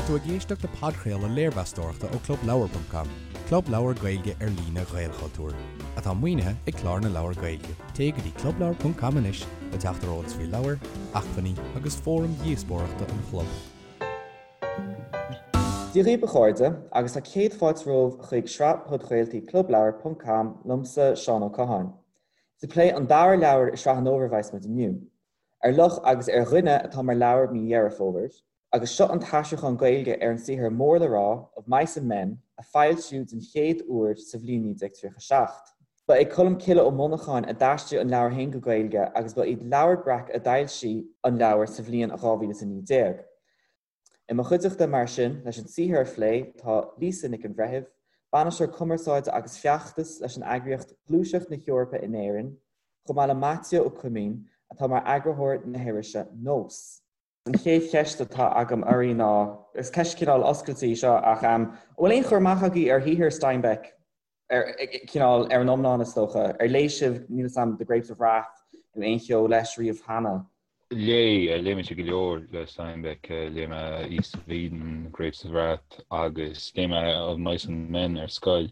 Tá tú ag éisteacht le podchraoladh léirmheastóireachta ó ClubLeabhar.com, club leabhar Gaeilge ar líne Ghaelchultúir, atá maoinithe ag Clár na Leabhar Gaeilge. Téigh go dtí clubleabhar.com anois le teacht ar eolas faoi leabhair, acmhainní agus fóraim dhíospóireachta an chlub. Dia dhaoibh a chairde, agus tá céad fáilte romhaibh chuig sraith podchraoltaí ClubLeabhar.com liomsa, Seán Ó Catháin. Is ag plé an dara leabhar i sraith an fhómhair a bheas muid inniu. Ar Luch agus ar Dhuine atá mar leabhar mí Dheireadh Fómhair, agus seo an t-aistriúchán Gaeilge ar an saothar mór le rá, Of Mice and Men, a foilsíodh den chéad uair sa bhliain 1937. Ba é Colm Cille Ó Monacháin a d'aistrigh an leabhar féin go Gaeilge agus ba iad Leabhar Breac a d'fhoilsigh an leabhar sa bhliain 2019. I mo chuideachta, mar sin, leis an saothar a phlé, tá Lisa Nic an Bhreithimh, Bainisteoir Cumarsáide agus Feachtas leis an eagraíocht Gluaiseacht na hEorpa in Éirinn, chomh maith le Maitiú Ó Coimín, atá mar eagarthóir na hirise Nós. An chéad cheist atá agam oraibh ná, is ceist cineál oscailte í seo, ach an bhfuil aon chur amach agaibh ar shaothar Steinbeck? ar cineál ar an iomlán is dócha. Ar léigh sibh, níl 'fhios a'm, The Grapes of Wrath nó aon cheo leis riamh cheana? Léigh, léigh mise go leor le Steinbeck, léigh mé East of Eden, Grapes of Wrath agus léigh mé Of Mice and Men ar scoil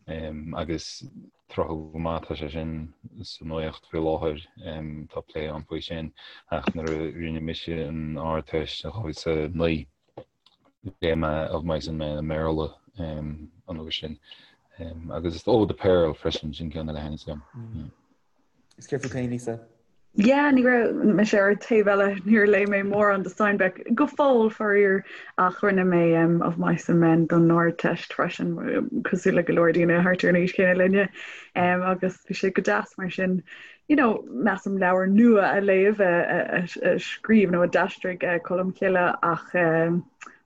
agus tráthúil go maith tá sé sin sa nuacht faoi láthair, tá plé ann faoi sin ach nuair a rinne mise an Ardteist in 2009, Léigh mé Of Mice and Men i mBéarla an uair sin. Agus is Oh, The Pearl freisin, sin ceann eile a thaitníos liom. Is céard fút féin, Lisa? Yeah, ní raibh mise ar an taobh eile, níor léigh mé mórán de Steinbeck go fóill, faraor, ach rinne mé Of Mice and Men don Ardteist freisin, cosúil le go leor daoine thart ar an aois chéanna linne, agus bhí sé go deas mar sin. you know, measaim leabhar nua a léamh a scríobh nó a d'aistrigh Colm Cille ach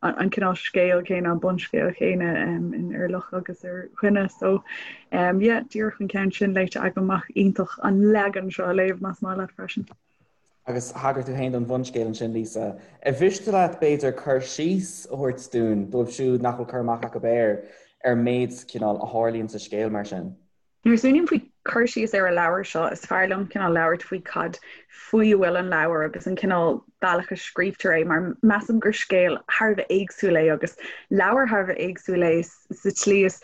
an cineál scéal céanna, an bunscéal céanna in Ar Luch agus ar Dhuine. So um, yeah, díreach an ceann sin léite agam ach iontach an leagan seo a léamh más maith leat freisin. Agus thagair tú féin don bhunscéal ansin, Lisa. Ar mhiste leat b'fhéidir cur síos a thabhairt dúinn, dóibh siúd nach bhfuil cur amach acu air, ar an méid cineál a tharlaíonn sa scéal mar sin? Nuair a smaoiním faoi cur síos ar an leabhar seo, is fearr liom cineál labhairt faoi cad faoi a bhfuil an leabhar agus an cineál bealach a scríobhtar é, mar measaim gur scéal thar a bheith éagsúil é agus leabhar thar a bheith éagsúil é sa tslí is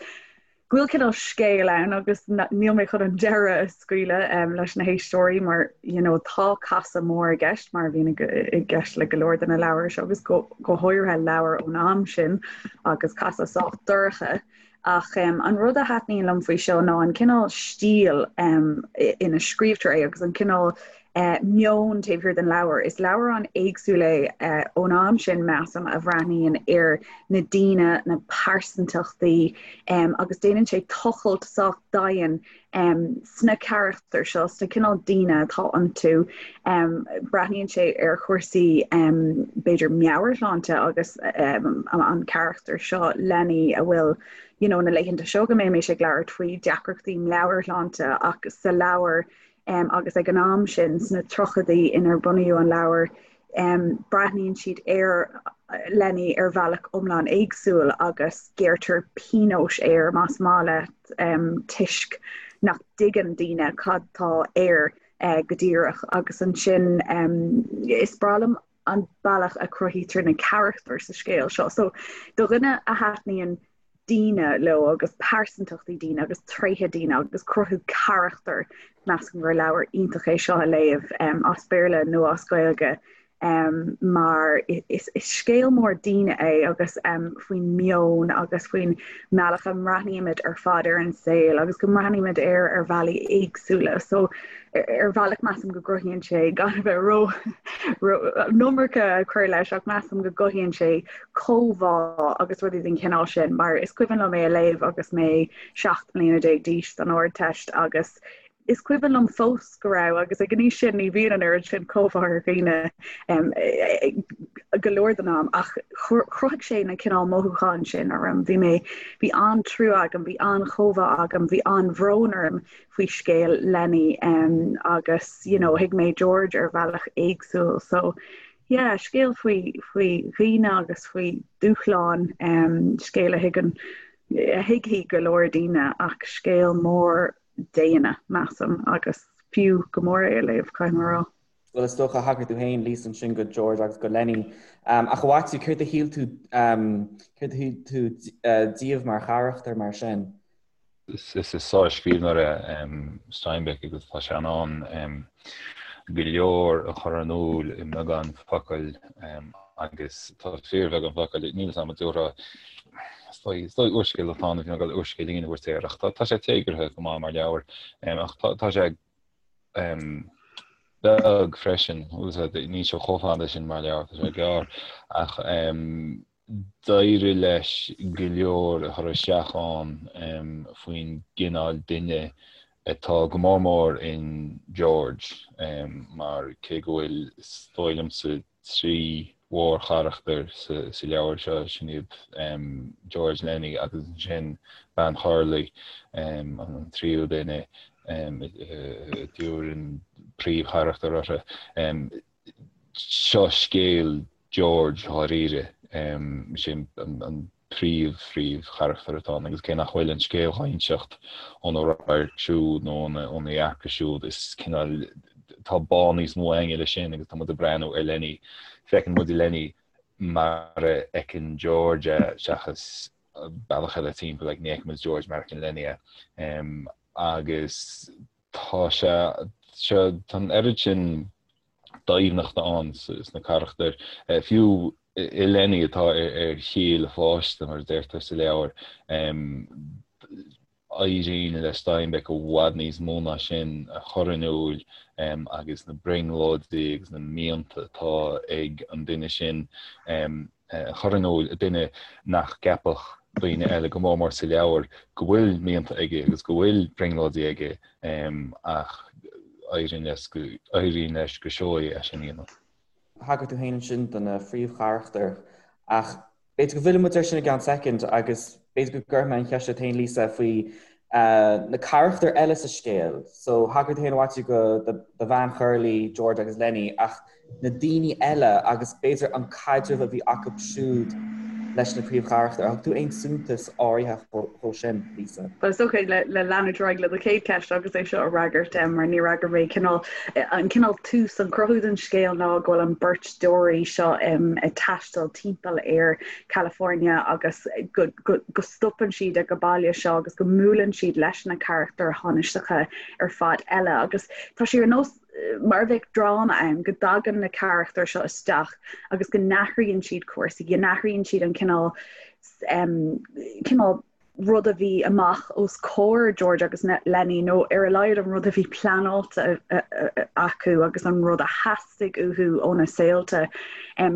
go bhfuil cineál scéal ann agus níl mé chun an deireadh a scaoileadh leis na héisteoirí mar you know tá casadh mór i gceist mar a bhíonn i gceist le go leor de na leabhair seo agus go go háirithe leabhair ón am sin agus casadh sách dorcha. Ach an rud a thaitníonn liom faoi seo ná an cineál stíl ina scríobhtar é agus an cineál meon taobh thiar den leabhar. Is leabhar an-éagsúil é ón am sin, measaim, a bhreathnaíonn ar na daoine, na pearsantachtaí agus déanann sé tochailt sách domhain sna carachtair seo, sna cineál daoine atá iontu. Breathnaíonn sé ar chúrsaí b'fhéidir meabhairshláinte agus an carachtar seo, Lenny, a bhfuil you know na laethanta seo go mbímid ag labhairt faoi deacrachtaí meabhairshláinte ach sa leabhar agus ag an am sin sna tríochaidí inar bunaíodh an leabhar, breathnaíonn siad ar Lenny ar bhealach iomlán éagsúil agus gearrtar pionós air más maith leat toisc nach dtuigeann daoine cad tá air go díreach agus ansin is breá liom an bealach a cruthaítear na carachtair sa scéal seo. So do dhuine a thaitníonn daoine leo agus pearsantachtaí daoine agus tréithe daoine agus cruthú carachtar, measaim gur leabhar iontach é seo a léamh as Béarla nó as Gaeilge mar is scéal mór daoine é agus faoin meon agus faoin mbealach a mbreathnaímid ar fad ar an saol agus go mbreathnaímid air ar bhealaí éagsúla. So ar bhealach measaim go gcruthaíonn sé gan a bheith ró an iomarca a chur leis ach measaim go gcothaíonn sé comhbhá agus rudaí den chineál sin mar is cuimhin liom é a léamh agus mé 17 mbliana d'aois don Ardteist agus is cuimhin liom fós go raibh agus ag an aois sin ní bhíonn an oiread sin comhbhá ar dhaoine go leor den am ach chruthaigh sé na cineál mothúcháin sin orm. Bhí mé bhí an-trua agam, bhí an-chomhbhá agam, bhí an-bhrón orm faoi scéal Lenny agus you know thuig mé George ar bhealach éagsúil so yeah scéal faoi faoi dhaoine agus faoi dúshláin scéal a thuigeann a thuigfidh go leor daoine ach scéal mór daonna measaim agus fiú go mór é a léamh caithfidh mé a rá. Bhuel, is dócha, thagair tú féin, Lisa, ansin go George agus go Lenny. Ach a Mhaitiú, céard a shíl tú, céard a shíl tú díobh mar charachtair mar sin? Is sár-scríbhneoir é Steinbeck agus tá sé in ann go leor a chur in iúl i mbeagán focal agus tá fíorbheagán focal, níl 'fhios a'm an dtabharfá, is dóigh úrscéal atá ann, bhí mé ag dul úrscéilín a thabhairt air ach tá sé téagartha go maith mar leabhar ach tá sé beag freisin, níl sé chomh fada sin mar leabhar, tá sé gearr, ach d'éirigh leis go leor a chur isteach ann faoin gcineál duine atá go mór mór in George, mar cé go bhfuil, is dóigh liomsa, 3 mhórcharachtar sa leabhar seo, sin iad George, Lenny agus ansin bean Churley, an tríú duine a dtabharfainn príomhcharachtar orthu. Seo scéal George dháiríre, sin an príomh-phríomhcharachtar atá ann agus cé nach bhfuil an scéal á inseacht óna radharc siúd nó óna dhearcadh siúd, is cineál, tá bá níos mó againne leis sin agus tá muid ag breathnú ar Lenny, feiceann muid Lenny mar a fheiceann George é seachas bealach eile timpeall, like, ní fheiceann muid George mar a fheiceann Lenny é. Agus tá sé, tá an oiread sin doimhneachta ann sna carachtair, fiú i Lenny atá ar chiall a pháiste, mar a deirtear sa leabhar. Éiríonn le Steinbeck i bhfad níos mó ná sin a chur in iúl agus na brionglóidí agus na mianta atá ag an duine sin a chur in iúl, duine nach gceapfadh daoine eile, go mór mór sa leabhar, go bhfuil mianta aige agus go bhfuil brionglóidí aige ach éiríonn leis go, éiríonn leis go seoigh é sin a dhéanamh. Thagair tú féin ansin do na phríomhcharachtair ach b'fhéidir go bhfillfidh muid air sin i gceann soicind agus b'fhéidir go gcuirfidh mé an cheist ort féin, Lisa, faoi na carachtair eile sa scéal. So thagair tú féin a Mhaitiú go do bhean Churley, George agus Lenny ach na daoine eile agus b'fhéidir an caidreamh a bhí acu siúd leis na príomhcharachtair. Ar thug tú aon suntas áirithe dhó sin, Lisa? Bhuel, is dócha le leanúint ar aghaidh le do chéad cheist agus é seo a fhreagairt, mar níor fhreagair mé cineál, an cineál tús, an cruthú den scéal ná go bhfuil an beirt deoraí seo ag taisteal timpeall ar California agus go go stopann siad ag an baile seo agus go mbuaileann siad leis na carachtair thánaisteacha ar fad eile agus tá sé ar nós mar a bheadh dráma ann, go dtagann na carachtair seo isteach agus go n-athraíonn siad cúrsaí, go n-athraíonn siad an cineál cineál rud a bhí amach os comhair George agus Lenny nó ar a laghad an rud a bhí pleanáilte acu agus an rud a theastaigh uathu óna saolta.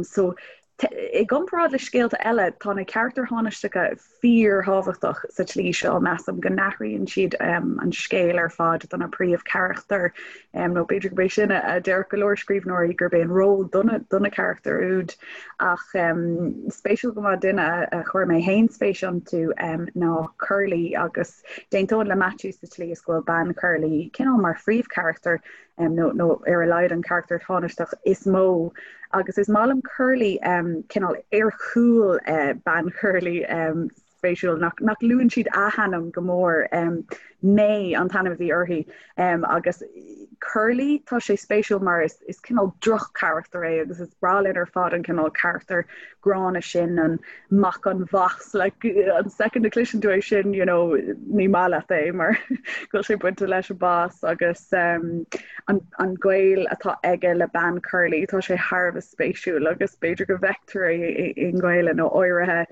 So I gcomparáid le scéalta eile, tá na carachtair thánaisteacha fíorthábhachtach sa tslí seo, measaim, go n-athraíonn siad an scéal ar fad do na príomhcharachtair, nó b'fhéidir gurb é sin a déarfadh go leor scríbhneoirí, gurb é an ról do na carachtair úd. Ach spéisiúil go maith, duine a chuir mé féin spéis iontu ná Curly, agus d'aontóinn le Maitiú sa tslí is go bhfuil bean Churley cineál mar phríomhcharachtar nó nó ar a laghad an carachtar tánaisteach is mó agus is maith liom Curly cineál ar chúl bean Churley spéisiúil nach nach luann siad a hainm go mór May an t-ainm a bhí uirthi agus Curly tá sé spéisiúil mar is is cineál droch-charachtar é agus is breá linn ar fad an cineál carachtar gránna sin an mac an bhais like an second a chloiseann tú é sin you know ní maith leat é mar go bhfuil sé bainte leis an bás agus um, an, an gaol atá aige le bean Curly tá sé thar a bheith spéisiúil agus b'fhéidir go bhfeictear é i nGaelainn ó áirithe.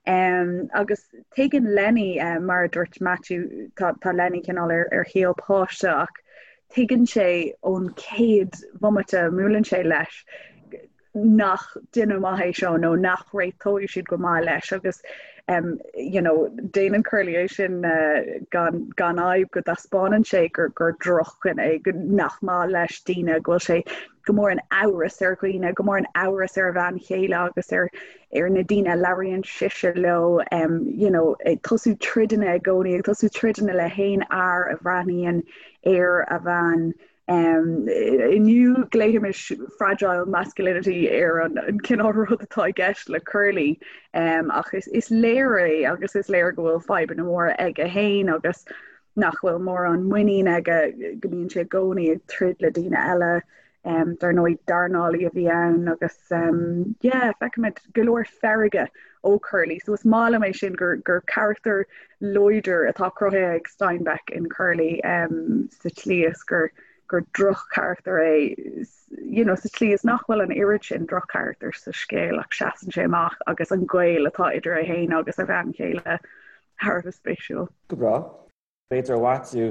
Um, agus tuigeann Lenny um, mar a dúirt Matthew tá, tá Lenny cineál ar, ar chiall páiste ach tuigeann sé ón chéad bhomaite a mbuaileann sé leis nach duine maith é seo nó nach réiteoidh siad go maith leis agus um, you know, déanann Curly é sin uh, gan, gan fhadhb go dtaispeánann sé gur, gur drochdhuine é, go nach maith leis daoine, go bhfuil sé go mór in amhras ar dhaoine, go mór in amhras ar a bhean chéile agus ar ar na daoine a labhraíonn sise leo, um, you know, ag tosú troideanna i gcónaí, ag tosú troideanna le haon fhear a bhreathnaíonn ar a bhean Inniu glaoimis fragile masculinity ar an cineál rud atá i gceist le Curly ach is léir é agus is léir go bhfuil fadhbanna móra aige féin agus nach bhfuil mórán muinín aige, go mbíonn sé i gcónaí ag troid le daoine eile. Dar ndóigh dornálaí a bhí ann agus yeah feicimid go leor feirge ó Curly so is maith liom é sin gur gur carachtar láidir atá cruthaithe ag Steinbeck in Curly sa tslí is gur gur droch-charachtar é you know sa tslí is nach bhfuil an oiread sin droch-charachtar sa scéal ach seasann sé amach agus an gaol atá idir é féin agus a bhean chéile thar a bheith spéisiúil. Go breá. B'fhéidir a Mhaitiú,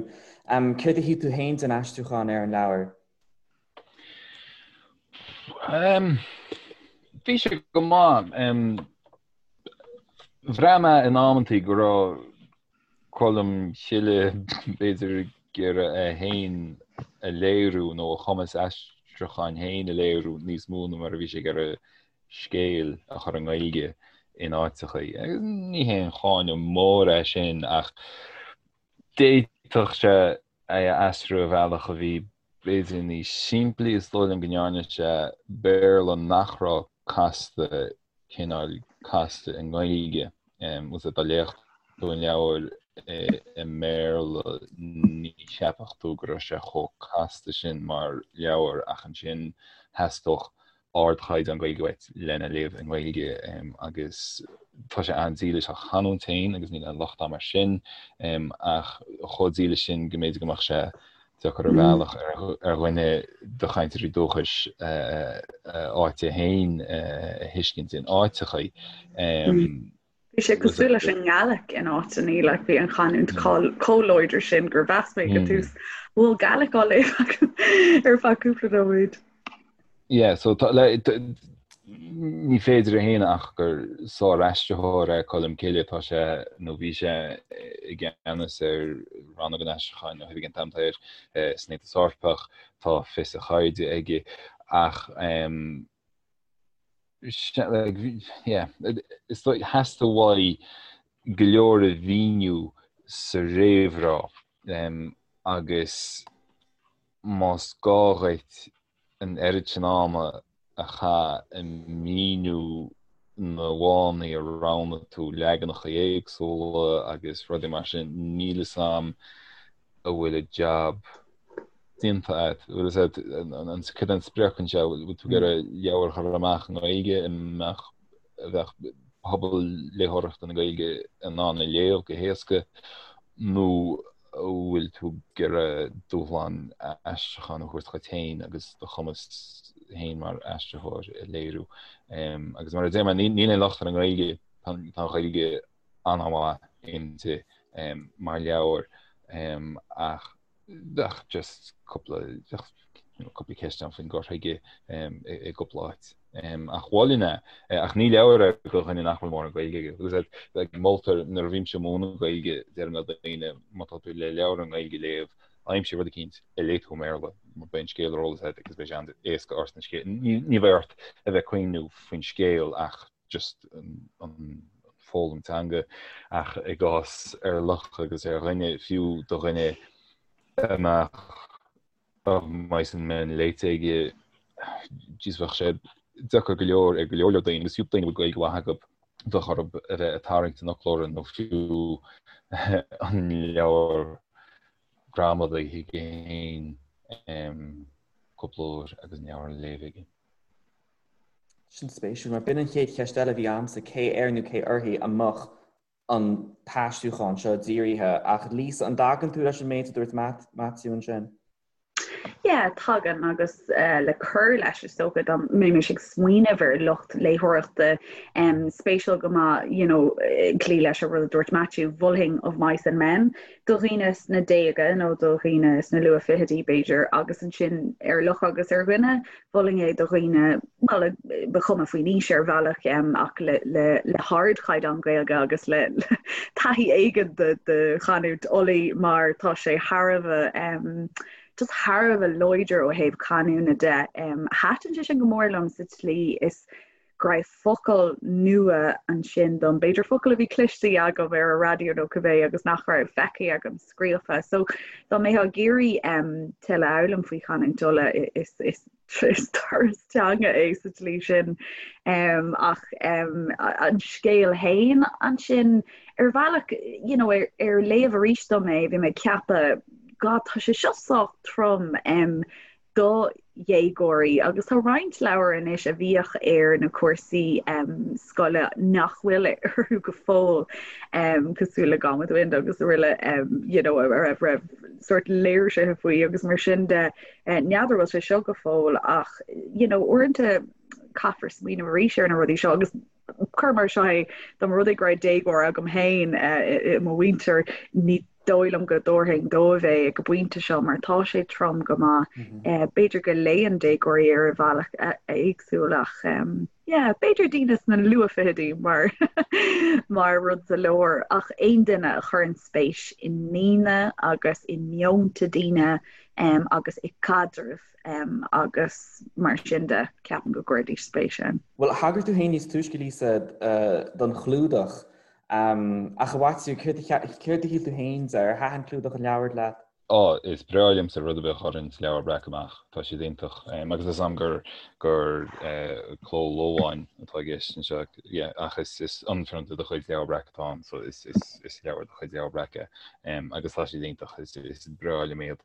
céard a shíl tú féin den aistriúchán ar an leabhar? Bhí sé go maith. Bhraith mé in amantaí go raibh Colm Cille b'fhéidir ag iarraidh é féin a léiriú nó a chumas aistriúcháin féin a léiriú níos mó ná mar a bhí sé ag iarraidh scéal a chur i nGaeilge in áiteachaí. Agus ní haon cháineadh mór é sin ach d'fhéadfadh sé é a aistriú ar bhealach a bhí b'fhéidir níos simplí. Is dóigh liom go ndearna sé Béarla nach raibh casta cineál casta i nGaeilge. Bhfuil dá léifeá tú an leabhar i mBéarla ní cheapfadh tú go raibh sé chomh casta sin mar leabhar ach ansin theastódh ardchaighdeán Gaeilge uait lena léamh i nGaeilge agus tá sé an-dílis dá chanúint féin agus níl aon locht air mar sin ach chomh dílis sin go mb'fhéidir go mbeadh sé deacair ar bhealach ar dhuine de chainteoirí dúchais a áite féin a thuiscint in áiteachaí. Bhí sé cosúil leis an nGaelic in áiteanna, like bhí an chanúint chomh láidir sin gur mheas mé go tús bhfuil Gaelic á léamh agam ar feadh cúpla nóiméad. Yeah, so tá, le, ní féidir a shéanadh ach gur sár-aistritheoir é Colm Cille, tá sé, nó bhí sé i gceannas ar rannóg an aistriúcháin nó oifig an t-am san Aontas Eorpach, tá fios a cheirde aige ach yeah, is dóigh, theastaigh uaidh go leor a mhíniú sa réamhrá agus más gá dhuit an oiread sin ama a chaitheamh ag míniú na bhfáthanna a roghnaigh tú leaganacha éagsúla agus rudaí mar sin, níl fhios a'm an bhfuil an jab déanta agat. Bhfuil fhios agat an cad é an sprioc anseo, bhfuil tú ag iarraidh leabhar a chur amach i nGaeilge a mbeadh a bheadh pobal léitheoireachta na Gaeilge in ann a léamh go héasca nó an bhfuil tú ag iarraidh dúshlán aistriúcháin a thabhairt dhuit féin agus do chumas féin mar aistritheoir a léiriú. Agus mar a deir mé, níl aon locht ar an nGaeilge, tá an Ghaeilge an-mhaith inti mar leabhar ach bheadh just cúpla cúpla ceist ann faoin gcur chuige i gcúpla áit. Ach mholfainn é, ach ní leabhar é do dhuine nach bhfuil mórán Gaeilge aige. Agus like, moltar nuair a bhímse ag múineadh Gaeilge, deirim le daoine má tá tú le leabhar i nGaeilge a léamh, aimsigh rud eicínt a léigh tú i mBéarla, mar beidh an scéal ar eolas agat agus beidh sé an-éasca ort an scéal. Ní bheidh ort a bheith ag cuimhniú faoin scéal ach just an foghlaim teanga ach i gcás Ar Luch agus ar Dhuine, fiú do dhuine a mbeadh Of Mice and Men léite aige, jeez bheadh sé deacair go leor ar go leor leor daoine agus fiú daoine a bhfuil Gaeilge mhaith acu bheadh orthu a bheith ag tarraingt an fhoclóra nó fiú an leabhar gramadaí chuige féin cúpla uair agus an leabhar á léamh aige. Sin spéisiúil, mar b'in an chéad cheist eile a bhí agamsa, cé air nó cé uirthi a mbeadh an t-aistriúchán seo dírithe? Ach Lisa, an dtagann tú leis an méid a dúirt Maitiú ansin? Yeah, tagann agus le cur leis is dócha dá mbeimis ag smaoineamh ar lucht léitheoireachta spéisiúil go maith, you know, cloí leis an rud a dúirt Maitiú, mholfainn Of Mice and Men do dhaoine sna déaga nó do dhaoine sna luath-fhichidí b'fhéidir agus ansin Ar Luch agus ar Dhuine Mholfainn é do dhaoine, bhuel, ba chuma faoin aois ar bhealach, ach le le hardchaighdeán Gaeilge agus le taithí éigin de de chanúint Ulaidh mar tá sé thar a bheith just thar a bheith láidir ó thaobh canúna de. Thaitin sé sin go mór liom sa tslí is go raibh focail nua ansin dom, b'fhéidir focail a bhí cloiste agam ar an raidió nó cibé agus nach raibh feicthe agam scríofa. So dá mbeifeá ag iarraidh um, tuilleadh a fhoghlaim faoi chanúint Uladh is, is, is turas teanga é sa tslí sin. Um, ach um, an scéal féin ansin ar bhealach you know, ar, ar léamh arís dom é, bhí mé ag ceapadh, God, tá sé seo sách trom. Um, do dhéagóirí agus tá roinnt leabhar anois a bhíodh ar na cúrsaí scoile nach bhfuil orthu go fóill cosúil le Gone with the Wind agus araile you know a raibh raibh sórt léirsithe faoi agus mar sin de n'fheadar bhfuil sé seo go fóill ach you know uaireanta caithfear smaoineamh arís ar na rudaí seo agus cuir mar seo é dá mba rud é go raibh déagóir agam féin i mo mhuintir ní dóigh liom go dtabharfainn dóibh é ag an bpointe seo mar tá sé trom go maith. B'fhéidir go léann déagóirí ar bhealach éagsúil ach yeah b'fhéidir daoine sna luathfhichidí mar mar rud sa leabhar ach aon duine a chuireann spéis i ndaoine agus i meonta daoine agus i gcaidrimh agus mar sin de, ceapaim go gcuirfidís spéis ann. Bhuel, thagair tú féin níos túisce, Lisa, don chlúdach. Ach a Mhaitiú, céard a shíl tú féin de? Ar thaitin clúdach an leabhair leat? Á, is breá liomsa rud ar bith a chuireann Leabhar Breac amach. Tá siad iontach. Agus is am gur gur Cló Loagáin atá i gceist anseo. Yeah, ach is is ionphrionta de chuid Leabhar Breac atá ann, so is is is leabhar de chuid Leabhar Breac é. Agus tá siad iontach. Is is breá liom iad.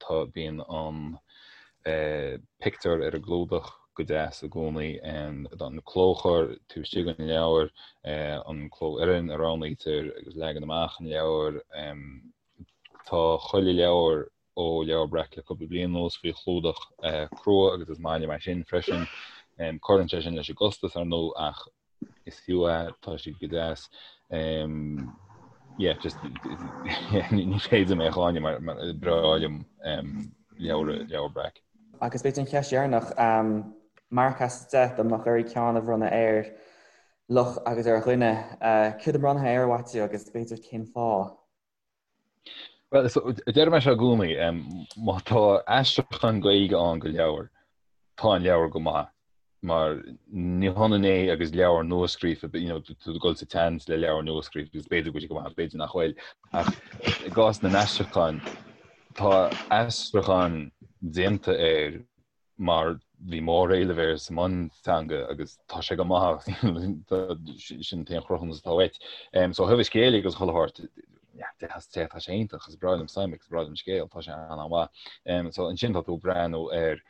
Tá, bíonn an pictiúr ar an gclúdach go deas i gcónaí, an clóchur taobh istigh den leabhar, an clófhoireann a roghnaítear agus leagan amach an leabhair. Tá chuile leabhar ó Leabhar Breac le cúpla bliain anuas faoi chlúdach crua agus is maith liom é sin freisin. Cuireann sé sin leis an gcostas ar ndóigh ach is fiú é, tá siad go deas. Yeah, just ní féidir mé a cháineadh mar mar breá liom leabhar Leabhar Breac. Agus b'fhéidir an cheist dheireanach, marc as 10 dá mbeadh oraibh ceann a bhronnadh ar Luch agus ar Dhuine, céard a bhronnfá air, a Mhaitiú, agus b'fhéidir cén fáth? Bhuel, deir mé seo i gcónaí, má tá aistriúchán Gaeilge ann go leabhar, tá an leabhar go maith, mar ní hionann é agus leabhar nuascríofa, you know, tú ag dul sa tseans le leabhar nuascríofa agus b'fhéidir go bhfuil sé go maith, b'fhéidir nach bhfuil. Ach i gcás na n-aistriúchán, tá aistriúchán déanta air mar bhí móréileamh air sa mbunteanga agus tá sé go maith sin an t-aon chruthúnas atá uait. So ó thaobh an scéil agus chuile shórt 10 as 10 tá sé iontach is breá liom Steinbeck is breá liom an scéal tá sé an-mhaith. So ansin tá tú ag breathnú ar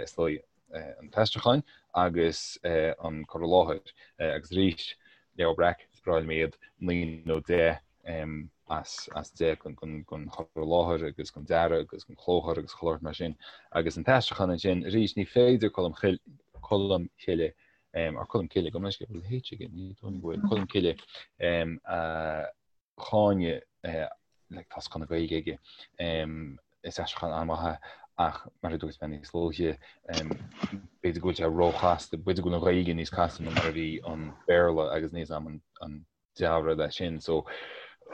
is dóigh an t-aistriúchán agus an cur i láthair agus arís Leabhar Breac is breá liom iad 9 nó 10 as as 10 don chur i láthair agus don dearadh agus don chlóchur agus chuile shórt mar sin. Agus an t-aistriúchán ansin, arís, ní féidir Colm Colm Cille or Colm Cille, gabh mo leithscéal, bhfuil H aige? Ní dóigh go bhfuil, Colm Cille a cháineadh like tá scoth na Gaeilge aige. Is aistriúchán an-mhaith é ach mar a dúirt mé níos luaithe, b'fhéidir go bhfuil sé róchasta, b'fhéidir go bhfuil an Ghaeilge níos casta ná mar a bhí an Béarla agus níl a fhios agam an dea-rud é sin. So,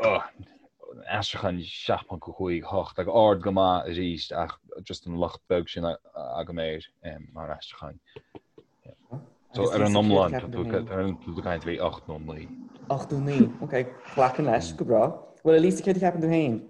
aistriúchán 7.5, 8 ag ard go maith arís ach just an locht beag sin agam air mar aistriúchán. So ar an iomlán tá tú ag caint faoi 8 nó 9. 8 nó 9, ok, glacaim leis, go breá. Bhuel, a Lisa, céard a cheapann tú féin?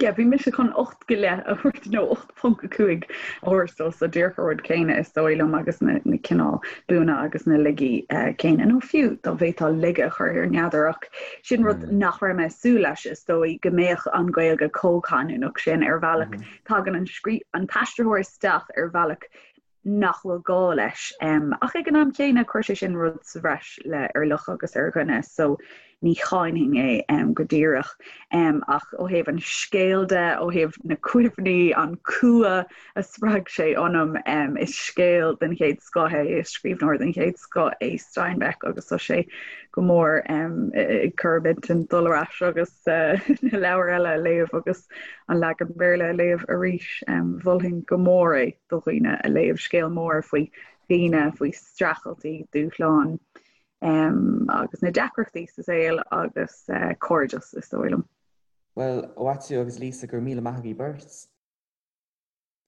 Yeah, bhí mise chun 8 go leith a thabhairt nó 8.5 a thabhairt dó so díreach an rud céanna is dóigh liom agus na, na cineál buanna agus na laigí uh, céanna nó fiú dá bhféadfá laige a chur air n'fheadar ach sin rud mm. nach raibh mé ag súil leis is dóigh go mbeadh an Ghaeilge chomh canúnach sin ar bhealach mm. tagann an scrí an t-aistritheoir isteach ar bhealach nach bhfuil gá leis. Ach ag an am chéanna, chuir sé sin rud sa bhreis le Ar Luch agus ar Dhuine, so ní cháinfinn é go díreach. Ach ó thaobh an scéil de, ó thaobh na cuimhní, an cumha a spreag sé ionam, is scéal den chéad scoth é, is scríbhneoir den chéad scoth é Steinbeck agus tá sé go mór ag cur m'intinn dul ar ais agus na leabhair eile a léamh agus an leagan Béarla a léamh arís. Mholfainn go mór é. do dhaoine a léamh scéal mór faoi dhaoine, faoi streachailtí, dúshláin agus na deacrachtaí sa saol agus cairdeas is dóigh liom. Bhuel, a Mhaitiú agus Lisa, go raibh míle maith agaibh beirt.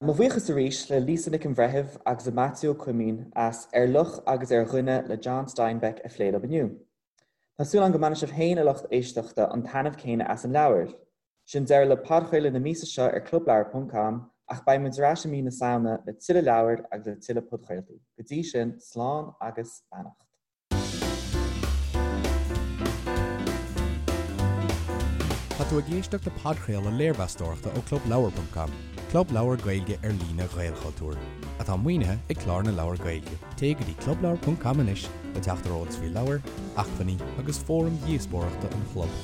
Mo bhuíochas arís le Lisa Nic an Bhreithimh agus le Maitiú Ó Coimín as Ar Luch agus ar Dhuine le John Steinbeck a phlé liom inniu. Tá súil agam go mbainfidh sibh féin, a lucht éisteachta, an taitneamh céanna as an leabhar. Sin deireadh le podchraoladh na míosa seo ar clubleabhar ponc com ach beidh muid ar ais i mí na Samhna le tuilleadh leabhar agus le tuilleadh podchraoltaí. Go dtí sin, slán agus beannacht. Tá Tá tú ag éisteacht le podchraoladh léirmheastóireachta ó ClubLeabhar.com, club leabhar Gaeilge ar líne Ghaelchultúir, atá maoinithe ag Clár na Leabhar Gaeilge. Téigh go dtí clubleabhar.com anois le teacht ar eolas faoi leabhair, acmhainní agus fóraim dhíospóireachta an chlub.